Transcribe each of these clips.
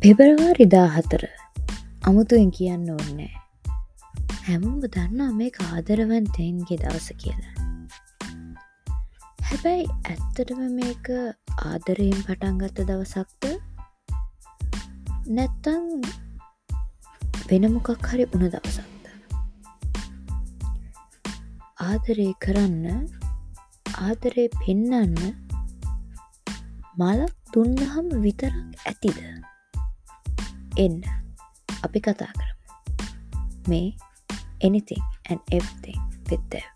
පෙබරවාරි 14 අමුතුවෙන් කියන්න ඕනේ නෑ. හැමෝම දන්නවා මේක ආදරවන්තයින්ගේ දවස කියලා. හැබැයි ඇත්තටම මේක ආදරයෙන් පටන් ගත්ත දවසක්ද නැත්තම් වෙන මොකක් හරි වුණ දවසක්ද? ආදරේ කරන්න, ආදරේ පෙන්නන්න මලක් දුන්නහම විතරක් ඇතිද? එන්න අපි කතා කරමු. මේ anything and everything with them.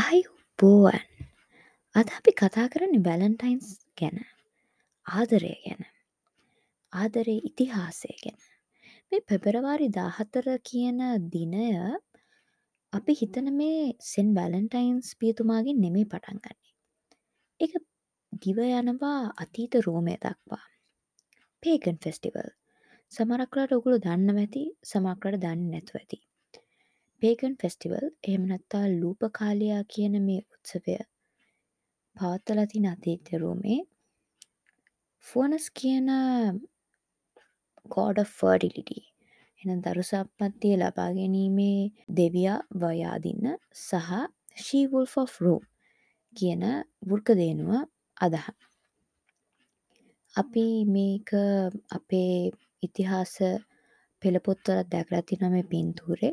ආයුබෝවන්. අද අපි කතා කරන්නේ වැලන්ටයින්ස් ගැන, ආදරය ගැන, ආදරේ ඉතිහාසය ගැන. මේ පෙබරවාරි 14 කියන දිනය අපි හිතන මේ සෙන් වැලන්ටයින්ස් පියතුමාගෙන් නෙමෙයි පටන් ගන්නෙ. ඒක දිව යනවා අතීත රෝමය දක්වා. පේගන් ෆෙස්ටිවල්. සමහරක් වෙලාවට ඔයගොල්ලෝ දන්නව ඇති, සමහරක් වෙලාවට දන්නේ නැතුව ඇති. පේගන් ෆෙස්ටිවල් එහෙම නැත්නම් ලූපකාලියා කියන මේ උත්සවය පවත්වලා තියෙන අතීත රෝමේ ෆෝනස් කියන God of fertility, එහෙනම් දරු සම්පත්තිය ලබා ගැනීමේ දෙවියා වයාදින්න සහ she wolf of Rome කියන වෘක දේනුව අදහන. අපි මේක අපේ ඉතිහාස පෙළ පොත්වලත් දැකලා තියෙනවා. මේ පින්තූරේ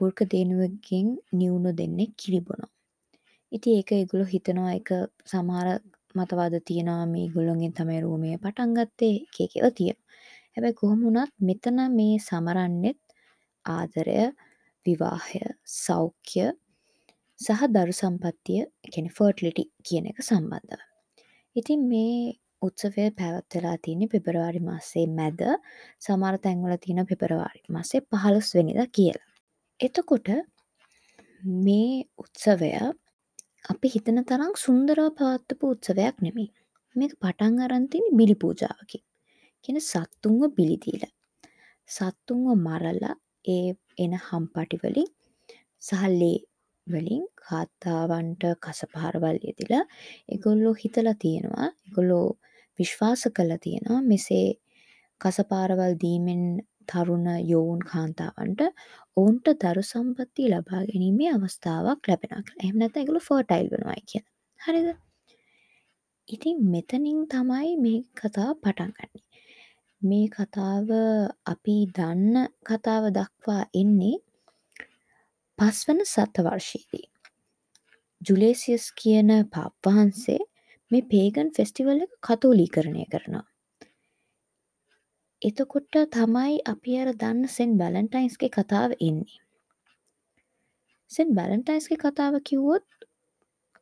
වෘක දේනුවකින් නිවුණු දෙන්නෙක් කිරි බොනවා. ඉතින් ඒක ඒගොල්ලෝ හිතනවා, ඒක සමහර මතවාද තියෙනවා මේ ඒගොල්ලොන්ගෙන් තමයි රෝමය පටන් ගත්තේ, එක එක ඒවා තියෙනවා. හැබැයි කොහොම වුණත් මෙතන මේ සමරන්නෙත් ආදරය, විවාහය, සෞඛ්‍ය සහ දරු සම්පත්තිය, ඒ කියන්නේ ෆර්ටිලිටි කියන එක සම්බන්ධව. ඉතින් මේ උත්සවය පැවැත්වලා තියෙන්නේ පෙබරවාරි මාසයේ මැද, සමහර තැන්වල තියෙනවා පෙබරවාරි මාසයේ 15 වෙනිදා කියලා. එතකොට මේ උත්සවය අපි හිතන තරම් සුන්දරව පවත්වපු උත්සවයක් නෙමෙයි. මේක පටන් අරන් තියෙන්නේ බිලි පූජාවකින්. කියන්නේ සත්තුන්ව බිලි දීලා. සත්තුන්ව මරලා ඒ එන හම්පටි වලින් සහ ලේ වලින් කාන්තාවන්ට කසපාරවල් යෙදිලා ඒගොල්ලෝ හිතලා තියෙනවා, ඒගොල්ලෝ විශ්වාස කරලා තියෙනවා මෙසේ කසපාරවල් දීමෙන් තරුණ යොවුන් කාන්තාවන්ට ඔවුන්ට දරු සම්පත්තිය ලබා ගැනීමේ අවස්ථාවක් ලැබෙනවා කියලා. එහෙම නැත්නම් ඒගොල්ලෝ ෆර්ටයිල් වෙනවායි කියලා. හරිද? ඉතින් මෙතනින් තමයි මේ කතාව පටන් ගන්නෙ. මේ කතාව අපි දන්න කතාව දක්වා එන්නේ පස්වන සතවර්ෂයේදී. ජුලේසියස් කියන පාප් වහන්සේ මේ පේගන් ෆෙස්ටිවල් එක කතෝලීකරණය කරනවා. එතකොට තමයි අපි අර දන්න සෙන් වැලන්ටයින්ස්ගේ කතාව එන්නේ. සෙන් වැලන්ටයින්ස්ගේ කතාව කිව්වොත්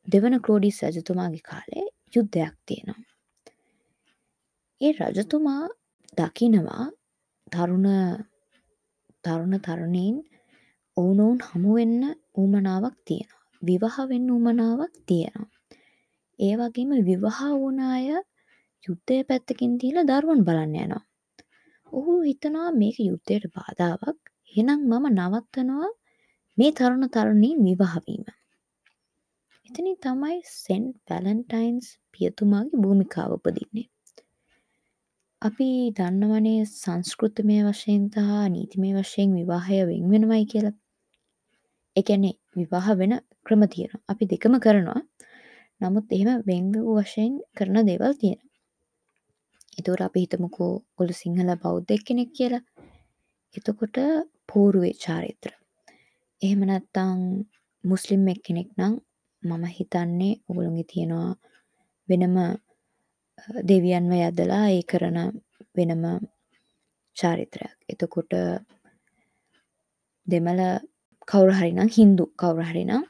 දෙවන ක්ලෝඩිස් රජතුමාගේ කාලේ යුද්ධයක් තියෙනවා. ඒ රජතුමා දකිනවා තරුණ තරුණ තරුණීන් ඔවුනොවුන් හමු වෙන්න උවමනාවක් තියෙනවා. විවාහ වෙන්න උවමනාවක් තියෙනවා. ඒ වගේම විවාහ වුණ අය යුද්ධය පැත්තකින් තියලා දරුවන් බලන්න යනවා. ඔහු හිතනවා මේක යුද්ධයට බාධාවක්. එහෙනම් මම නවත්තනවා මේ තරුණ තරුණීන් විවාහ වීම. එතනින් තමයි සෙන්ට් වැලන්ටයින්ස් පියතුමාගේ භූමිකාව උපදින්නේ. අපි දන්නවනේ සංස්කෘතිමය වශයෙන් සහ නීතිමය වශයෙන් විවාහය වෙන් වෙනවයි කියලා. ඒ කියන්නේ විවාහ වෙන ක්‍රම තියෙනවා. අපි දෙකම කරනවා. නමුත් එහෙම වෙන් වූ වශයෙන් කරන දේවල් තියෙනවා. එතකොට අපි හිතමුකෝ ඔයගොල්ලෝ සිංහල බෞද්ධ එක්කෙනෙක් කියලා. එතකොට පෝරුවේ චාරිත්‍ර. එහෙම නැත්නම් මුස්ලිම් එක්කෙනෙක් නම් මම හිතන්නේ ඔයගොල්ලෝගේ තියෙනවා වෙනම දෙවියන්ව යදලා ඒ කරන වෙනම චාරිත්‍රයක්. එතකොට දෙමළ කවුරු හරි නම්, හින්දු කවුරු හරි නම්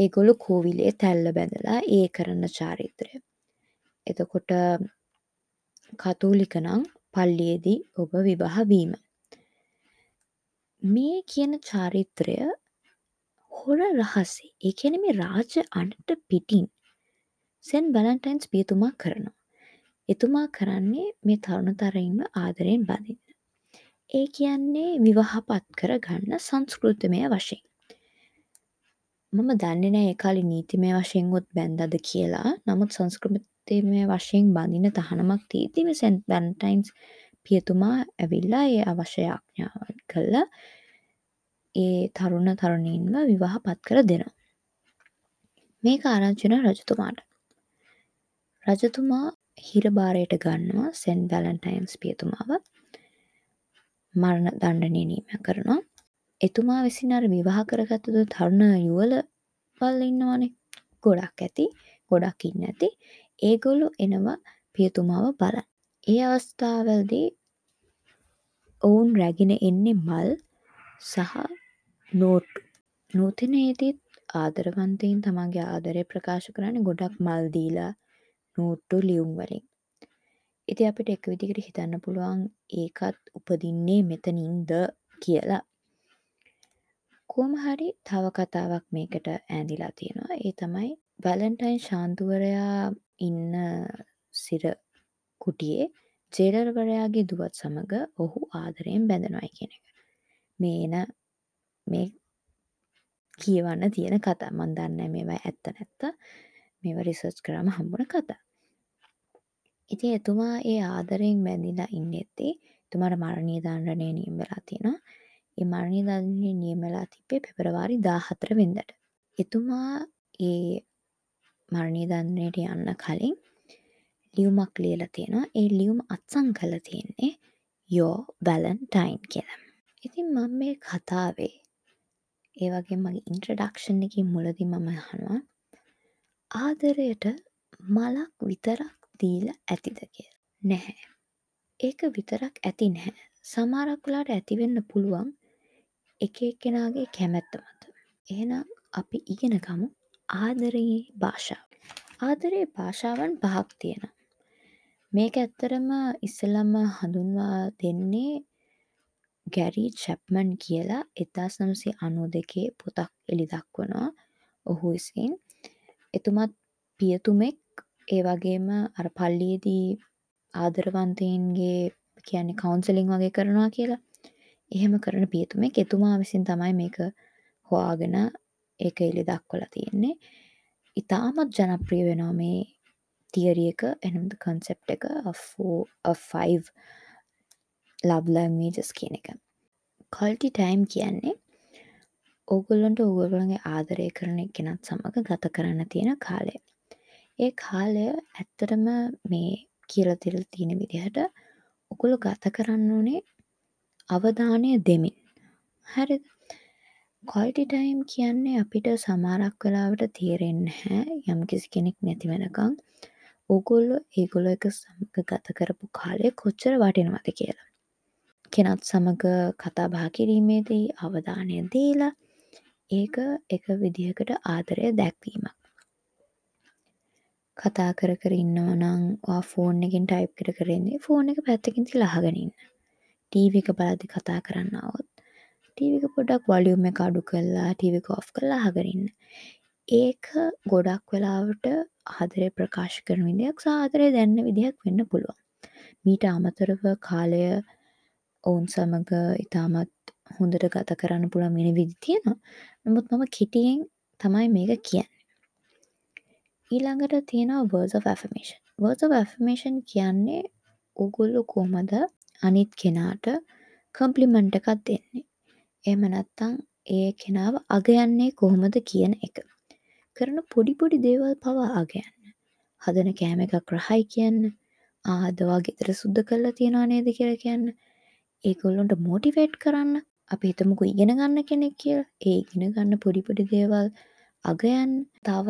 ඒගොල්ලෝ කෝවිලේ තැල්ල බැඳලා ඒ කරන චාරිත්‍රය. එතකොට කතෝලික නම් පල්ලියේදී ඔබ විවාහ වීම. මේ කියන චාරිත්‍රය හොර රහසේ, ඒ කියන්නේ මේ රාජ අණට පිටින් සෙන් වැලන්ටයින්ස් පියතුමා කරනවා. එතුමා කරන්නේ මේ තරුණ තරුණීන්ව ආදරයෙන් බඳින්න. ඒ කියන්නේ විවාහපත් කරගන්න සංස්කෘතිමය වශයෙන්. මම දන්නේ නෑ ඒ කාලේ නීතිමය වශයෙන් උත් බැන්දද කියලා. නමුත් සංස්කෘතිමය වශයෙන් බඳින තහනමක් තියෙද්දි මේ සෙන්ට් වැලන්ටයින්ස් පියතුමා ඇවිල්ලා ඒ අවශ්‍ය යාඥාවන් කළා ඒ තරුණ තරුණීන්ව විවාහ පත් කර දෙනවා. මේක ආරංචි වෙනවා රජතුමාට. රජතුමා හිරබාරයට ගන්නවා සෙන්ට් වැලන්ටයින්ස් පියතුමාව. මරණ දණ්ඩනය නියම කරනවා. එතුමා විසින් අර විවාහ කරගත්තු තරුණ යුවළවල් ඉන්නවනේ. ගොඩක් ඇති. ගොඩක් ඉන්න ඇති. ඒගොල්ලෝ එනවා පියතුමාව බලන්න. ඒ අවස්ථාවලදී ඔවුන් රැගෙන එන්නේ මල් සහ නෝට්ටු. නූතනයේදීත් ආදරවන්තයින් තමන්ගේ ආදරය ප්‍රකාශ කරන්නේ ගොඩක් මල් දීලා නෝට්ටු ලියුම් වලින්. ඉතින් අපිට එක විදිහකට හිතන්න පුළුවන් ඒකත් උපදින්නේ මෙතනින්ද කියලා. කොහොම හරි තව කතාවක් මේකට ඈඳිලා තියෙනවා. ඒ තමයි වැලන්ටයින් ශාන්තුවරයා ඉන්න සිර කුටියේ ජේලර්වරයාගේ දුවත් සමග ඔහු ආදරයෙන් බැඳෙනවායි කියන එක. මේ එන මේ කියවන්න තියෙන කතා. මං දන්නේ නැහැ මේවා ඇත්ත නැත්ත. මේවා රිසර්ච් කරාම හම්බුන කතා. ඉතින් එතුමා ඒ ආදරයෙන් බැඳිලා ඉන්නෙද්දී එතුමාට මරණීය දණ්ඩනය නියම වෙලා තියෙනවා. ඒ මරණීය දණ්ඩනය නියම වෙලා තිබ්බේ පෙබරවාරි 14 වෙනිදාට. එතුමා ඒ මරණීය දණ්ඩනයට යන්න කලින් ලියුමක් ලියලා තියෙනවා. ඒ ලියුම අත්සන් කරලා තියෙන්නේ Your Valentine කියලා. ඉතින් මම මේ කතාවේ ඒ වගේම මගේ ඉන්ට්‍රොඩක්ෂන් එකේ මුලදී මම අහනවා ආදරයට මලක් විතරක් දීලා ඇතිද කියලා. නැහැ. ඒක විතරක් ඇති නැහැ. සමහරක් වෙලාවට ඇති වෙන්න පුළුවන් එක එක්කෙනාගේ කැමැත්ත මත. එහෙනම් අපි ඉගෙන ගමු ආදරයේ භාෂාව. ආදරයේ භාෂාවන් පහක් තියෙනවා. මේක ඇත්තටම ඉස්සෙල්ලම හඳුන්වා දෙන්නේ ගැරි චැප්මන් කියලා 1992 පොතක් එළි දක්වනවා ඔහු විසින්. එතුමත් පියතුමෙක්, ඒ වගේම අර පල්ලියේදී ආදරවන්තයින්ගේ කියන්නේ කවුන්සලින් වගේ කරනවා කියලා. එහෙම කරන පියතුමෙක්. එතුමා විසින් තමයි මේක හොයාගෙන ඒක එළි දක්වලා තියෙන්නේ. ඉතාමත් ජනප්‍රිය වෙනවා මේ තියරි එක, එහෙනම් කන්සෙප්ට් එක of 5 love languages කියන එක. Quality time කියන්නේ ඕගොල්ලන්ට ඕගොල්ලන්ගේ ආදරය කරන එක්කෙනත් සමග ගත කරන්න තියෙන කාලය. ඒ කාලය ඇත්තටම මේ කියලා තියලා තියෙන විදිහට ඔගොල්ලෝ ගත කරන්න ඕනේ අවධානය දෙමින්. හරිද? Quality time කියන්නේ අපිට සමහරක් වෙලාවට තේරෙන්නේ නැහැ යම්කිසි කෙනෙක් නැති වෙනකන් ඕගොල්ලෝ ඒගොල්ලෝ එක සමග ගත කරපු කාලය කොච්චර වටිනවද කියලා. කෙනත් සමග කතා බහ කිරීමේදී අවධානය දීලා ඒක එක විදිහකට ආදරය දැක්වීමක්. කතා කර කර ඉන්නවා නම් ඔයා ෆෝන් එකෙන් ටයිප් කර කර ඉන්නේ ෆෝන් එක පැත්තකින් තියලා අහගෙන ඉන්න. ටීවී එක බලද්දි කතා කරන්න આવොත් ටීවී එක පොඩ්ඩක් වොලියුම් එක අඩු කරලා ටීවී එක ඔෆ් කරලා අහගෙන ඉන්න. ඒක ගොඩක් වෙලාවට ආදරය ප්‍රකාශ කරන විදියක් සහ ආදරය දැනෙන විදියක් වෙන්න පුළුවන්. මීට අමතරව කාලය ඔවුන් සමග ඉතාමත් හොඳට ගත කරන්න පුළුවන් වෙන විදි තියෙනවා. නමුත් මම කෙටියෙන් තමයි මේක කියන්නේ. ඊළඟට තියෙනවා words of affirmation. Words of affirmation කියන්නේ ඕගොල්ලෝ කොහොමද අනිත් කෙනාට කම්ප්ලිමන්ට් එකක් දෙන්නේ. එහෙම නැත්නම් ඒ කෙනාව අගයන්නේ කොහොමද කියන එක. කරන පොඩි පොඩි දේවල් පවා අගයන්න. හදන කෑම එකක් රහයි කියන්න. අද ඔයා ගෙදර සුද්ධ කරලා තියනවා නේද කියලා කියන්න. ඒගොල්ලන්ට මොටිවේට් කරන්න. අපි හිතමුකෝ ඉගෙන ගන්න කෙනෙක් කියලා. ඒ ඉගෙන ගන්න පොඩි පොඩි දේවල් අගයන්න. තව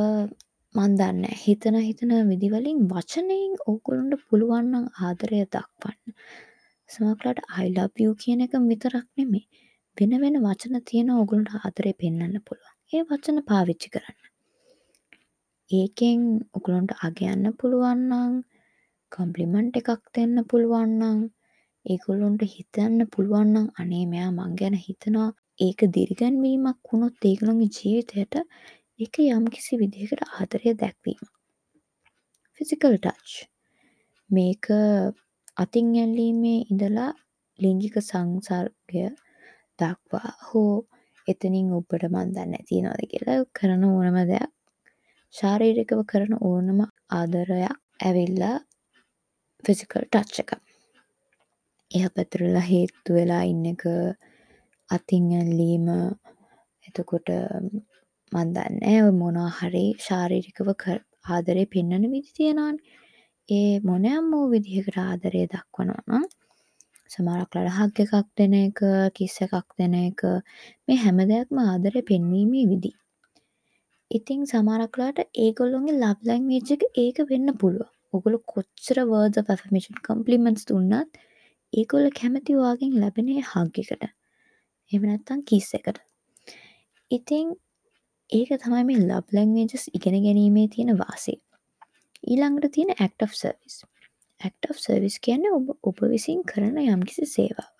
මන් දන්නේ හිතන හිතන විදි වලින් වචනයෙන් ඕගොල්ලන්ට පුළුවන් නම් ආදරය දක්වන්න. සමහරවිට I love you කියන එක විතරක් නෙමෙයි. වෙන වෙන වචන තියෙන ඕගොල්ලන්ට ආදරය පෙන්වන්න පුළුවන්. ඒ වචන පාවිච්චි කරන්න. ඒකෙන් ඔයගොල්ලන්ට අගයන්න පුළුවන් නම්, කම්ප්ලිමන්ට් එකක් දෙන්න පුළුවන් නම්, ඒගොල්ලන්ට හිතන්න පුළුවන් නම් අනේ මෙයා මං ගැන හිතනවා. ඒක දිරිගැන්වීමක් වුණොත් ඒගොල්ලන්ගේ ජීවිතයට ඒක යම්කිසි විදිහකට ආදරය දැක්වීම. Physical touch. මේක අතින් ඇල්ලීමේ ඉඳලා ලිංගික සංසර්ගය දක්වා හෝ එතනින් ඔබට මන් දන්නේ නැහැ තියනවද කියලා කරන ඕනම දෙයක් ශාරීරිකව කරන ඕනම ආදරයක් ඇවිල්ලා ෆිසිකල් ටච් එක. එහා පැත්තට වෙලා හේතු වෙලා ඉන්න එක, අතින් ඇල්ලීම, එතකොට මන් දන්නේ නැහැ ඔය මොනවා හරි ශාරීරිකව ආදරේ පෙන්වන විදි තියෙනවානේ. ඒ මොනෑම වූ විදිහකට ආදරය දක්වනවා නම් සමහරක් වෙලාවට හග් එකක් දෙන එක, කිස් එකක් දෙන එක, මේ හැම දෙයක්ම ආදරය පෙන්වීමේ විදි. ඉතින් සමහරක් වෙලාවට ඒගොල්ලොන්ගේ ලව් ලැන්ග්වේජ් එක ඒක වෙන්න පුළුවන්. ඔගොල්ලෝ කොච්චර words of affirmation compliments දුන්නත් ඒගොල්ලෝ කැමති ඔයාගෙන් ලැබෙන ඒ හග් එකට. එහෙම නැත්නම් කිස් එකට. ඉතින් ඒක තමයි මේ ලව් ලැන්ග්වේජස් ඉගෙන ගැනීමේ තියෙන වාසිය. ඊළඟට තියෙන act of service. Act of service කියන්නේ ඔබ විසින් කරන යම්කිසි සේවාවක්.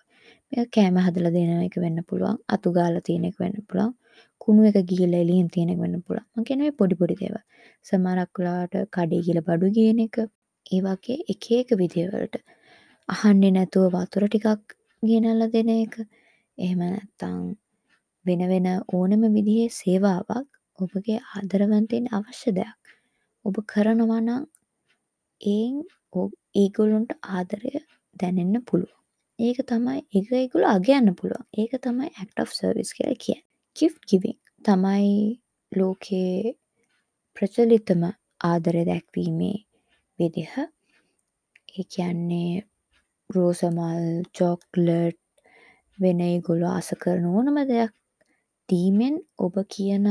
මේක කෑම හදලා දෙන එක වෙන්න පුළුවන්, අතු ගාලා තියෙන එක වෙන්න පුළුවන්, කුණු එක ගිහිල්ලා එළියෙන් තියෙන එක වෙන්න පුළුවන්. මං කියන්නේ මේ පොඩි පොඩි දේවල්. සමහරක් වෙලාවට කඩේ ගිහලා බඩු ගේන එක, ඒ වගේ එක එක විදිහවලට අහන්නේ නැතුව වතුර ටිකක් ගෙනල්ලා දෙන එක, එහෙම නැත්නම් වෙන වෙන ඕනම විදිහේ සේවාවක් ඔබගේ ආදරවන්තයින් අවශ්‍ය දෙයක්. ඔබ කරනවා නම් ඒන් ඒගොල්ලොන්ට ආදරය දැනෙන්න පුළුවන්. ඒක තමයි ඒක ඒගොල්ලෝ අගයන්න පුළුවන්. ඒක තමයි act of service කියලා කියන්නේ. Gift giving තමයි ලෝකයේ ප්‍රචලිතම ආදරය දැක්වීමේ විදිහ. ඒ කියන්නේ රෝස මල්, චොක්ලට්, වෙන ඒගොල්ලෝ ආස කරන ඕනම දෙයක් දීමෙන් ඔබ කියන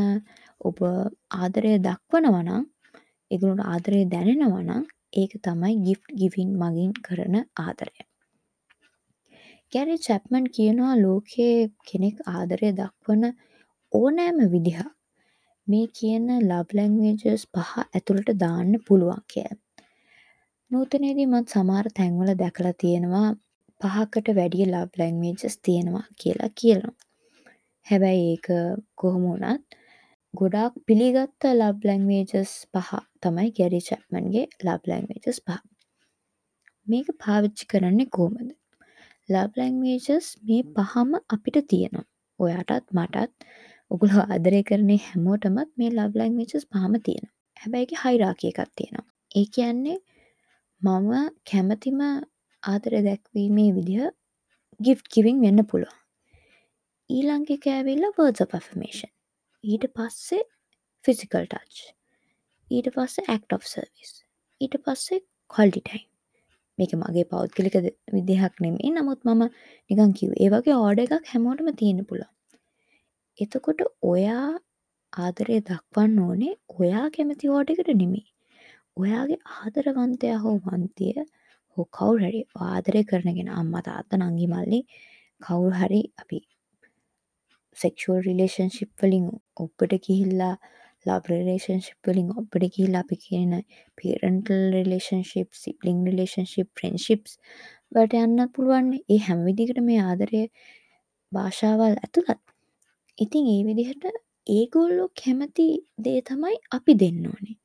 ඔබ ආදරය දක්වනවා නම්, ඒගොල්ලන්ට ආදරය දැනෙනවා නම්, ඒක තමයි gift giving මගින් කරන ආදරය. ගැරි චැප්මන් කියනවා ලෝකයේ කෙනෙක් ආදරය දක්වන ඕනෑම විදිහක් මේ කියන ලව් ලැන්ග්වේජස් පහ ඇතුළට දාන්න පුළුවන් කියලා. නූතනයේදී මත් සමහර තැන්වල දැකලා තියෙනවා පහකට වැඩිය ලව් ලැන්ග්වේජස් තියෙනවා කියලා කියනවා. හැබැයි ඒක කොහොම වුණත් ගොඩාක් පිළිගත්ත ලව් ලැන්ග්වේජස් පහ තමයි ගැරි චැප්මන්ගේ ලව් ලැන්ග්වේජස් පහ. මේක පාවිච්චි කරන්නේ කොහොමද? ලව් ලැන්ග්වේජස් මේ පහම අපිට තියෙනවා. ඔයාටත් මටත් ඔගොල්ලෝ ආදරය කරන හැමෝටමත් මේ ලව් ලැන්ග්වේජස් පහම තියෙනවා. හැබැයි ඒකේ හයිරාකි එකක් තියෙනවා. ඒ කියන්නේ මම කැමතිම ආදරය දැක්වීමේ විදිහ gift giving වෙන්න පුළුවන්. ඊළඟ එක ඇවිල්ලා words of affirmation. ඊට පස්සේ physical touch. ඊට පස්සේ act of service. ඊට පස්සේ quality time. මේක මගේ පෞද්ගලික විදිහක් නෙමෙයි. නමුත් මම නිකන් කිව්වේ. ඒ වගේ ඕඩර් එකක් හැමෝටම තියෙන්න පුළුවන්. එතකොට ඔයා ආදරය දක්වන්න ඕනේ ඔයා කැමති ඕඩර් එකට නෙමෙයි. ඔයාගේ ආදරවන්තයා හෝ වන්තිය හෝ කවුරු හරි ආදරය කරන කෙනා, අම්මා තාත්තා නංගි මල්ලි කවුරු හරි, අපි සෙක්ෂුවල් රිලේෂන්ෂිප් වලින් ඔබට ගිහිල්ලා, ලව් රිලේෂන්ෂිප් වලින් ඔබට ගිහිල්ලා, අපි කියන පේරන්ටල් රිලේෂන්ෂිප්, සිබ්ලිං රිලේෂන්ෂිප්, ෆ්‍රෙන්ඩ්ෂිප්ස් වලට යන්නත් පුළුවන්. ඒ හැම විදිහකටම මේ ආදරය භාෂාවල් ඇතුළත්. ඉතින් ඒ විදිහට ඒගොල්ලෝ කැමති දේ තමයි අපි දෙන්න ඕනේ.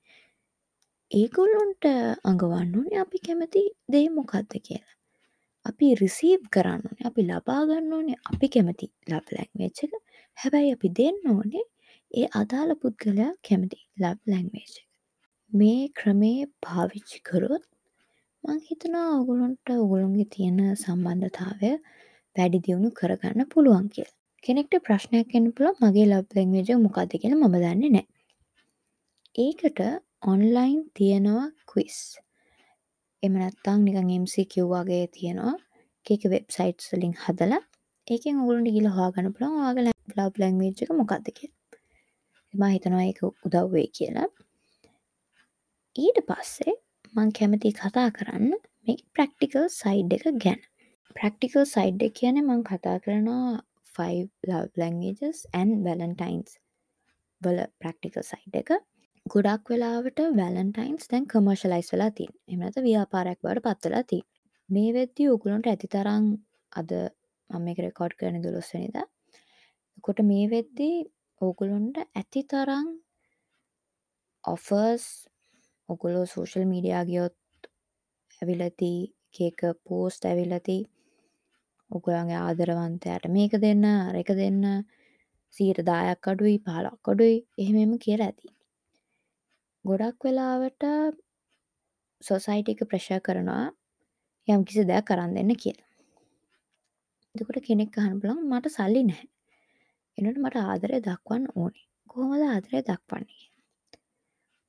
ඒගොල්ලොන්ට අඟවන්න ඕනේ අපි කැමති දේ මොකද්ද කියලා. අපි රිසීව් කරන්න ඕනේ, අපි ලබා ගන්න ඕනේ අපි කැමති ලව් ලැන්ග්වේජ් එක. හැබැයි අපි දෙන්න ඕනේ ඒ අදාළ පුද්ගලයා කැමති ලව් ලැන්ග්වේජ් එක. මේ ක්‍රමේ පාවිච්චි කරොත් මං හිතනවා ඔයගොල්ලන්ට ඔයගොල්ලන්ගේ තියෙන සම්බන්ධතාවය වැඩි දියුණු කරගන්න පුළුවන් කියලා. කෙනෙක්ට ප්‍රශ්නයක් එන්න පුළුවන් මගේ ලව් ලැන්ග්වේජ් එක මොකද්ද කියලා මම දන්නේ නැහැ. ඒකට ඔන්ලයින් තියෙනවා ක්විස්. එහෙම නැත්නම් නිකන් MCQ වගේ තියෙනවා. එක එක වෙබ්සයිට්ස් වලින් හදලා ඒකෙන් ඔයගොල්ලන්ට ගිහලා හොයාගන්න පුළුවන් ඔයාගේ ලව් ලැන්ග්වේජ් එක මොකද්ද කියලා. මම හිතනවා ඒක උදව් වෙයි කියලා. ඊට පස්සේ මං කැමති කතා කරන්න මේ ප්‍රැක්ටිකල් සයිඩ් එක ගැන. ප්‍රැක්ටිකල් සයිඩ් එක කියන්නේ මං කතා කරනවා 5 love languages and Valentine's වල ප්‍රැක්ටිකල් සයිඩ් එක. ගොඩක් වෙලාවට වැලන්ටයින්ස් දැන් කමර්ෂලයිස් වෙලා තියෙනවා. එහෙම නැත්නම් ව්‍යාපාරයක් බවට පත් වෙලා තියෙනවා. මේ වෙද්දී ඔයගොල්ලන්ට ඇති තරම්, අද මම මේක රෙකෝඩ් කරන්නේ 12 වෙනිදා. එතකොට මේ වෙද්දී ඔයගොල්ලන්ට ඇති තරම් ඔෆර්ස් ඔයගොල්ලෝ සෝෂල් මීඩියා ගියොත් ඇවිල්ලා තියෙයි, එක එක පෝස්ට් ඇවිල්ලා තියෙයි. ඔයගොල්ලන්ගේ ආදරවන්තයාට මේක දෙන්න, අර එක දෙන්න, 10%ක් අඩුයි 15ක් අඩුයි එහෙම එහෙම කියලා ඇති. ගොඩක් වෙලාවට සොසයිටි එක ප්‍රෙෂර් කරනවා යම් කිසි දෙයක් අරන් දෙන්න කියලා. එතකොට කෙනෙක් අහන්න පුළුවන් මට සල්ලි නැහැ. එනකොට මට ආදරය දක්වන්න ඕනේ. කොහොමද ආදරය දක්වන්නේ කියලා.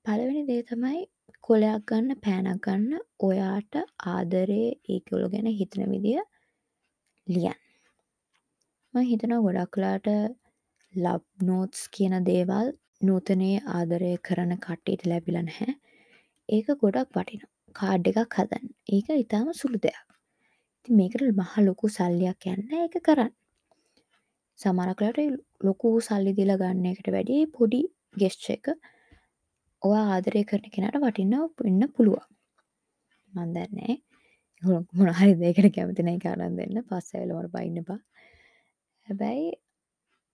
පළවෙනි දේ තමයි කොලයක් ගන්න පෑනක් ගන්න ඔයාට ආදරේ ඒගොල්ලෝ ගැන හිතන විදිය ලියන්න. මම හිතනවා ගොඩක් වෙලාවට ලව් නෝට්ස් කියන දේවල් නූතනයේ ආදරය කරන කට්ටියට ලැබිලා නැහැ. ඒක ගොඩක් වටිනවා. කාඩ් එකක් හදන්න. ඒක ඉතාම සුළු දෙයක්. ඉතින් මේකට මහ ලොකු සල්ලියක් යන්නේ නැහැ ඒක කරන්න. සමහරක් වෙලාවට ලොකු සල්ලි දීලා ගන්න එකට වැඩිය පොඩි ගෙස්චර් එක ඔයා ආදරය කරන කෙනාට වටිනවා වෙන්න පුළුවන්. මන් දන්නේ නැහැ. මොන හරි දෙයකට කැමති නැහැ ඒක අරන් දෙන්න. පස්සේ ඇවිල්ලා මට බයින්න එපා. හැබැයි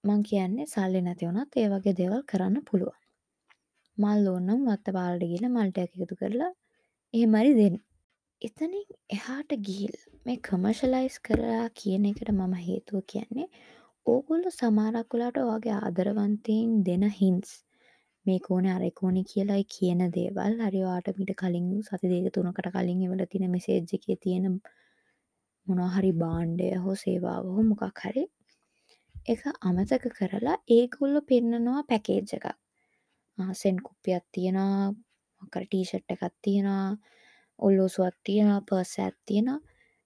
මං කියන්නේ සල්ලි නැති වුණත් ඒ වගේ දේවල් කරන්න පුළුවන්. මල් ඕන නම් වත්තපාලට ගිහලා මල් ටිකක් එකතු කරලා එහෙම හරි දෙන්න. එතනින් එහාට ගිහිල්ලා මේ කමර්ෂලයිස් කරලා කියන එකට මම හේතුව කියන්නේ ඕගොල්ලෝ සමහරක් වෙලාවට ඔයාගේ ආදරවන්තයින් දෙන හින්ට්ස් මේක ඕනේ අර එක ඕනේ කියලා කියන දේවල් හරි ඔයාට මීට කලින් සති දෙක තුනකට කලින් එවලා තියෙන මෙසේජ් එකේ තියෙන මොනවා හරි භාණ්ඩය හෝ සේවාව හෝ මොකක් හරි ඒක අමතක කරලා ඒගොල්ලෝ පෙන්නනවා පැකේජ් එකක්. සෙන් කුප්පියක් තියෙනවා, මොකක් හරි ටී-ෂර්ට් එකක් තියෙනවා, ඔල්ලෝසුවක් තියෙනවා, පර්ස් එකක් තියෙනවා.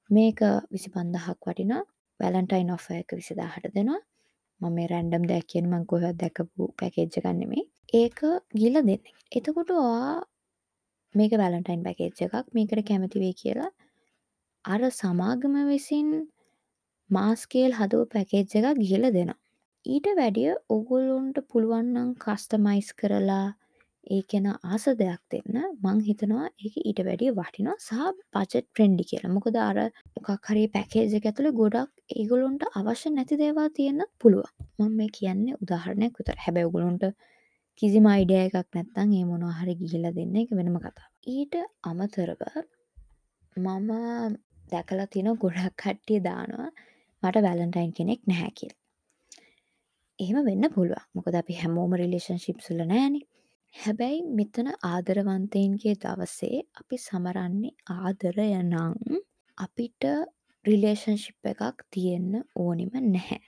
මේක 25,000ක් වටිනවා. වැලන්ටයින් ඔෆර් එක 20,000ට දෙනවා. මම මේ රැන්ඩම් දෙයක් කියන්නේ මං කොහෙවත් දැකපු පැකේජ් එකක් නෙමෙයි. ඒක ගිහලා දෙන්න. එතකොට ඔයා මේක වැලන්ටයින් පැකේජ් එකක් මේකට කැමති වෙයි කියලා අර සමාගම විසින් මාස් ස්කේල් හදපු පැකේජ් එකක් ගිහලා දෙනවා. ඊට වැඩිය ඕගොල්ලොන්ට පුළුවන් නම් කස්ටමයිස් කරලා ඒ කෙනා ආස දෙයක් දෙන්න මං හිතනවා ඒක ඊට වැඩිය වටිනවා සහ බජට් ෆ්‍රෙන්ඩ්ලි කියලා. මොකද අර මොකක් හරි පැකේජ් එක ඇතුලේ ගොඩක් ඒගොල්ලොන්ට අවශ්‍ය නැති දේවල් තියෙන්නත් පුළුවන්. මම මේ කියන්නේ උදාහරණයක් විතරයි. හැබැයි ඔයගොල්ලොන්ට කිසිම අයිඩියා එකක් නැත්නම් ඒ මොනවා හරි ගිහිලා දෙන්න ඒක වෙනම කතාවක්. ඊට අමතරව මම දැකලා තියෙන ගොඩක් කට්ටිය දානවා මට වැලන්ටයින් කෙනෙක් නැහැ කියලා. එහෙම වෙන්න පුළුවන්. මොකද අපි හැමෝම රිලේෂන්ෂිප්ස් වල නෑනේ. හැබැයි මෙතන ආදරවන්තයින්ගේ දවසේ අපි සමරන්නේ ආදරය නම් අපිට රිලේෂන්ෂිප් එකක් තියෙන්න ඕනෙම නැහැ.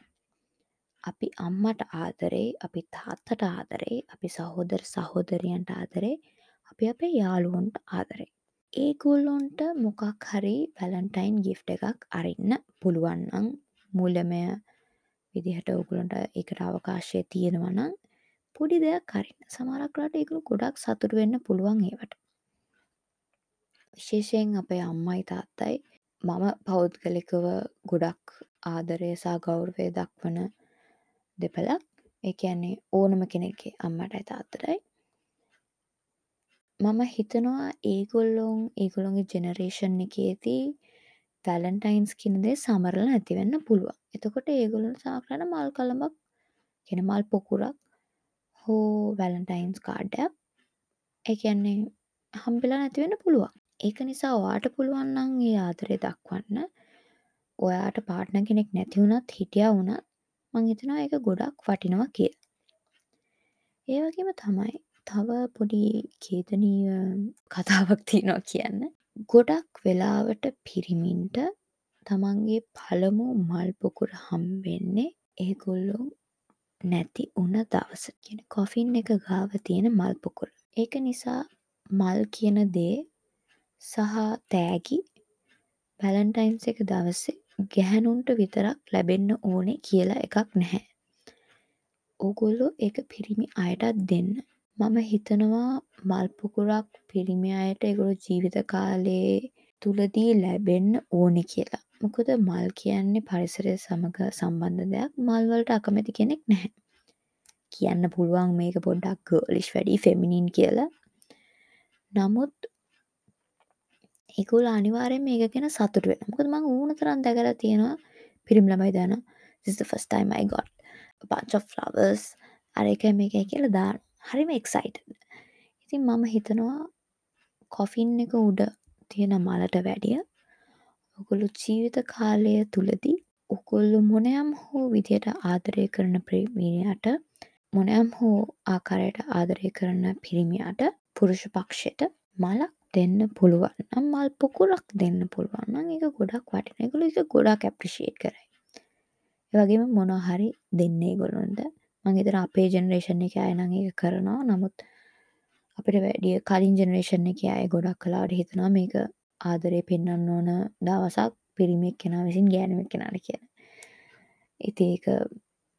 අපි අම්මට ආදරේ, අපි තාත්තට ආදරේ, අපි සහෝදර සහෝදරියන්ට ආදරේ, අපි අපේ යාළුවන්ට ආදරේ. ඒගොල්ලොන්ට මොකක් හරි වැලන්ටයින් ගිෆ්ට් එකක් අරින්න පුළුවන් නම් මූල්‍යමය විදිහට ඕගොල්ලන්ට ඒකට අවකාශය තියෙනවා නම් පොඩි දෙයක් අරින්න. සමහරක් වෙලාවට ඒගොල්ලෝ ගොඩක් සතුටු වෙන්න පුළුවන් ඒවට. විශේෂයෙන් අපේ අම්මයි තාත්තයි මම පෞද්ගලිකව ගොඩක් ආදරය සහ ගෞරවය දක්වන දෙපළක්. ඒ කියන්නේ ඕනම කෙනෙක්ගේ අම්මටයි තාත්තටයි. මම හිතනවා ඒගොල්ලොන්ගේ ජෙනරේෂන් එකේදී වැලන්ටයින්ස් කියන දේ සමරලා නැති වෙන්න පුළුවන්. එතකොට ඒගොල්ලොන්ට සමහරවිට මල් කලඹක්, කියන්නේ මල් පොකුරක් හෝ වැලන්ටයින්ස් කාඩ් එකක් ඒ කියන්නේ හම්බෙලා නැති වෙන්න පුළුවන්. ඒක නිසා ඔයාට පුළුවන් නම් ඒ ආදරය දක්වන්න. ඔයාට පාර්ට්නර් කෙනෙක් නැති වුණත් හිටියා වුණත් මං හිතනවා ඒක ගොඩක් වටිනවා කියලා. ඒ වගේම තමයි තව පොඩි ඛේදනීය කතාවක් තියෙනවා කියන්න. ගොඩක් වෙලාවට පිරිමින්ට තමන්ගේ පළමු මල් පොකුර හම්බෙන්නේ ඒගොල්ලෝ නැති වුණ දවස. කියන්නේ කොෆින් එක ගාව තියෙන මල් පොකුර. ඒක නිසා මල් කියන දේ සහ තෑගි වැලන්ටයින්ස් එක දවසේ ගැහැණුන්ට විතරක් ලැබෙන්න ඕනේ කියලා එකක් නැහැ. ඕගොල්ලෝ ඒක පිරිමි අයටත් දෙන්න. මම හිතනවා මල් පොකුරක් පිරිමි අයට ඒගොල්ලෝ ජීවිත කාලේ තුලදී ලැබෙන්න ඕනේ කියලා. මොකද මල් කියන්නේ පරිසරය සමග සම්බන්ධ දෙයක්. මල් වලට අකමැති කෙනෙක් නැහැ. කියන්න පුළුවන් මේක පොඩ්ඩක් ගර්ලිෂ් වැඩි ෆෙමිනින් කියලා. නමුත් ඒගොල්ලෝ අනිවාර්යයෙන්ම මේක ගැන සතුටු වෙනවා. මොකද මං ඕන තරම් දැකලා තියෙනවා පිරිමි ළමයි දානවා this is the first time I got a bunch of flowers අර එකයි මේකයි කියලා දානවා. හරිම එක්සයිටඩ්. ඉතින් මම හිතනවා කොෆින් එක උඩ තියෙන මලට වැඩිය ඔයගොල්ලෝ ජීවිත කාලය තුලදී ඔගොල්ලෝ මොනයම් හෝ විදියට ආදරය කරන පිරිමියාට, මොනයම් හෝ ආකාරයට ආදරය කරන පිරිමියාට, පුරුෂ පක්ෂයට මලක් දෙන්න පුළුවන් නම්, මල් පොකුරක් දෙන්න පුළුවන් නම් ඒක ගොඩක් වටිනවා. ඒගොල්ලෝ ඒක ගොඩක් ඇප්‍රීෂියේට් කරයි. ඒ වගේම මොනවා හරි දෙන්න ඒගොල්ලොන්ට. මං හිතනවා අපේ ජෙනරේෂන් එකේ අය නම් ඒක කරනවා. නමුත් අපිට වැඩිය කලින් ජෙනරේෂන් එකේ අය ගොඩක් වෙලාවට හිතනවා මේක ආදරේ පෙන්වන්න ඕන දවසක් පිරිමි එක්කෙනා විසින් ගෑනු එක්කෙනාට කියලා. ඉතින් ඒක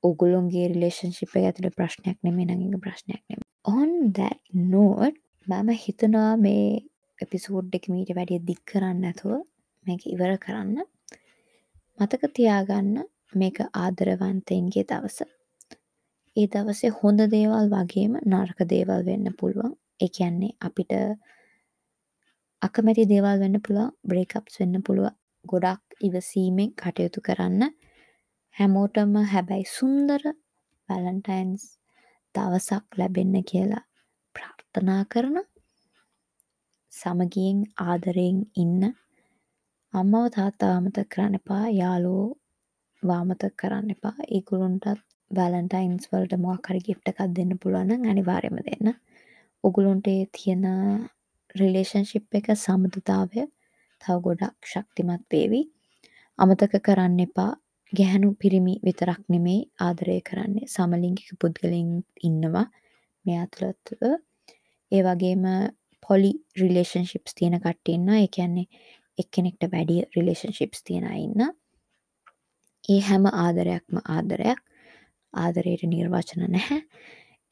ඔගොල්ලොන්ගේ රිලේෂන්ෂිප් එක ඇතුලේ ප්‍රශ්නයක් නෙමෙයි නම් ඒක ප්‍රශ්නයක් නෙමෙයි. On that note, මම හිතනවා මේ එපිසෝඩ් එක මීට වැඩිය දික් කරන්න නැතුව මේක ඉවර කරන්න. මතක තියාගන්න, මේක ආදරවන්තයින්ගේ දවස. ඒ දවසේ හොඳ දේවල් වගේම නරක දේවල් වෙන්න පුළුවන්. ඒ කියන්නේ අපිට අකමැති දේවල් වෙන්න පුළුවන්, බ්‍රේක්අප්ස් වෙන්න පුළුවන්. ගොඩක් ඉවසීමෙන් කටයුතු කරන්න. හැමෝටම හැබැයි සුන්දර වැලන්ටයින්ස් දවසක් ලැබෙන්න කියලා ප්‍රාර්ථනා කරන, සමගියෙන් ආදරයෙන් ඉන්න. අම්මව තාත්තව අමතක කරන්න එපා, යාළුවෝ අමතක කරන්න එපා. ඒගොල්ලොන්ටත් වැලන්ටයින්ස් වලට මොකක් හරි ගිෆ්ට් එකක් දෙන්න පුළුවන් නම් අනිවාර්යයෙන්ම දෙන්න. ඔගොල්ලොන්ට ඒ තියෙන රිලේෂන්ෂිප් එක, සබඳතාවය තව ගොඩක් ශක්තිමත් වේවි. අමතක කරන්න එපා, ගැහැණු පිරිමි විතරක් නෙමෙයි ආදරය කරන්නේ, සමලිංගික පුද්ගලයින් ඉන්නවා මේ අතරතුර. ඒ වගේම පොලි රිලේෂන්ෂිප්ස් තියෙන කට්ටිය ඉන්නවා. ඒ කියන්නේ එක්කෙනෙක්ට වැඩි රිලේෂන්ෂිප්ස් තියෙන අය ඉන්නවා. ඒ හැම ආදරයක්ම ආදරයක්. ආදරයට නිර්වචන නැහැ.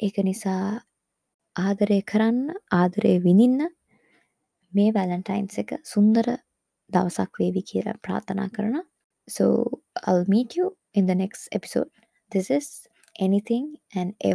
ඒක නිසා ආදරය කරන්න, ආදරය විඳින්න. මේ වැලන්ටයින්ස් එක සුන්දර දවසක් වේවි කියලා ප්‍රාර්ථනා කරනවා. So I'll meet you in the next episode. This is Anything and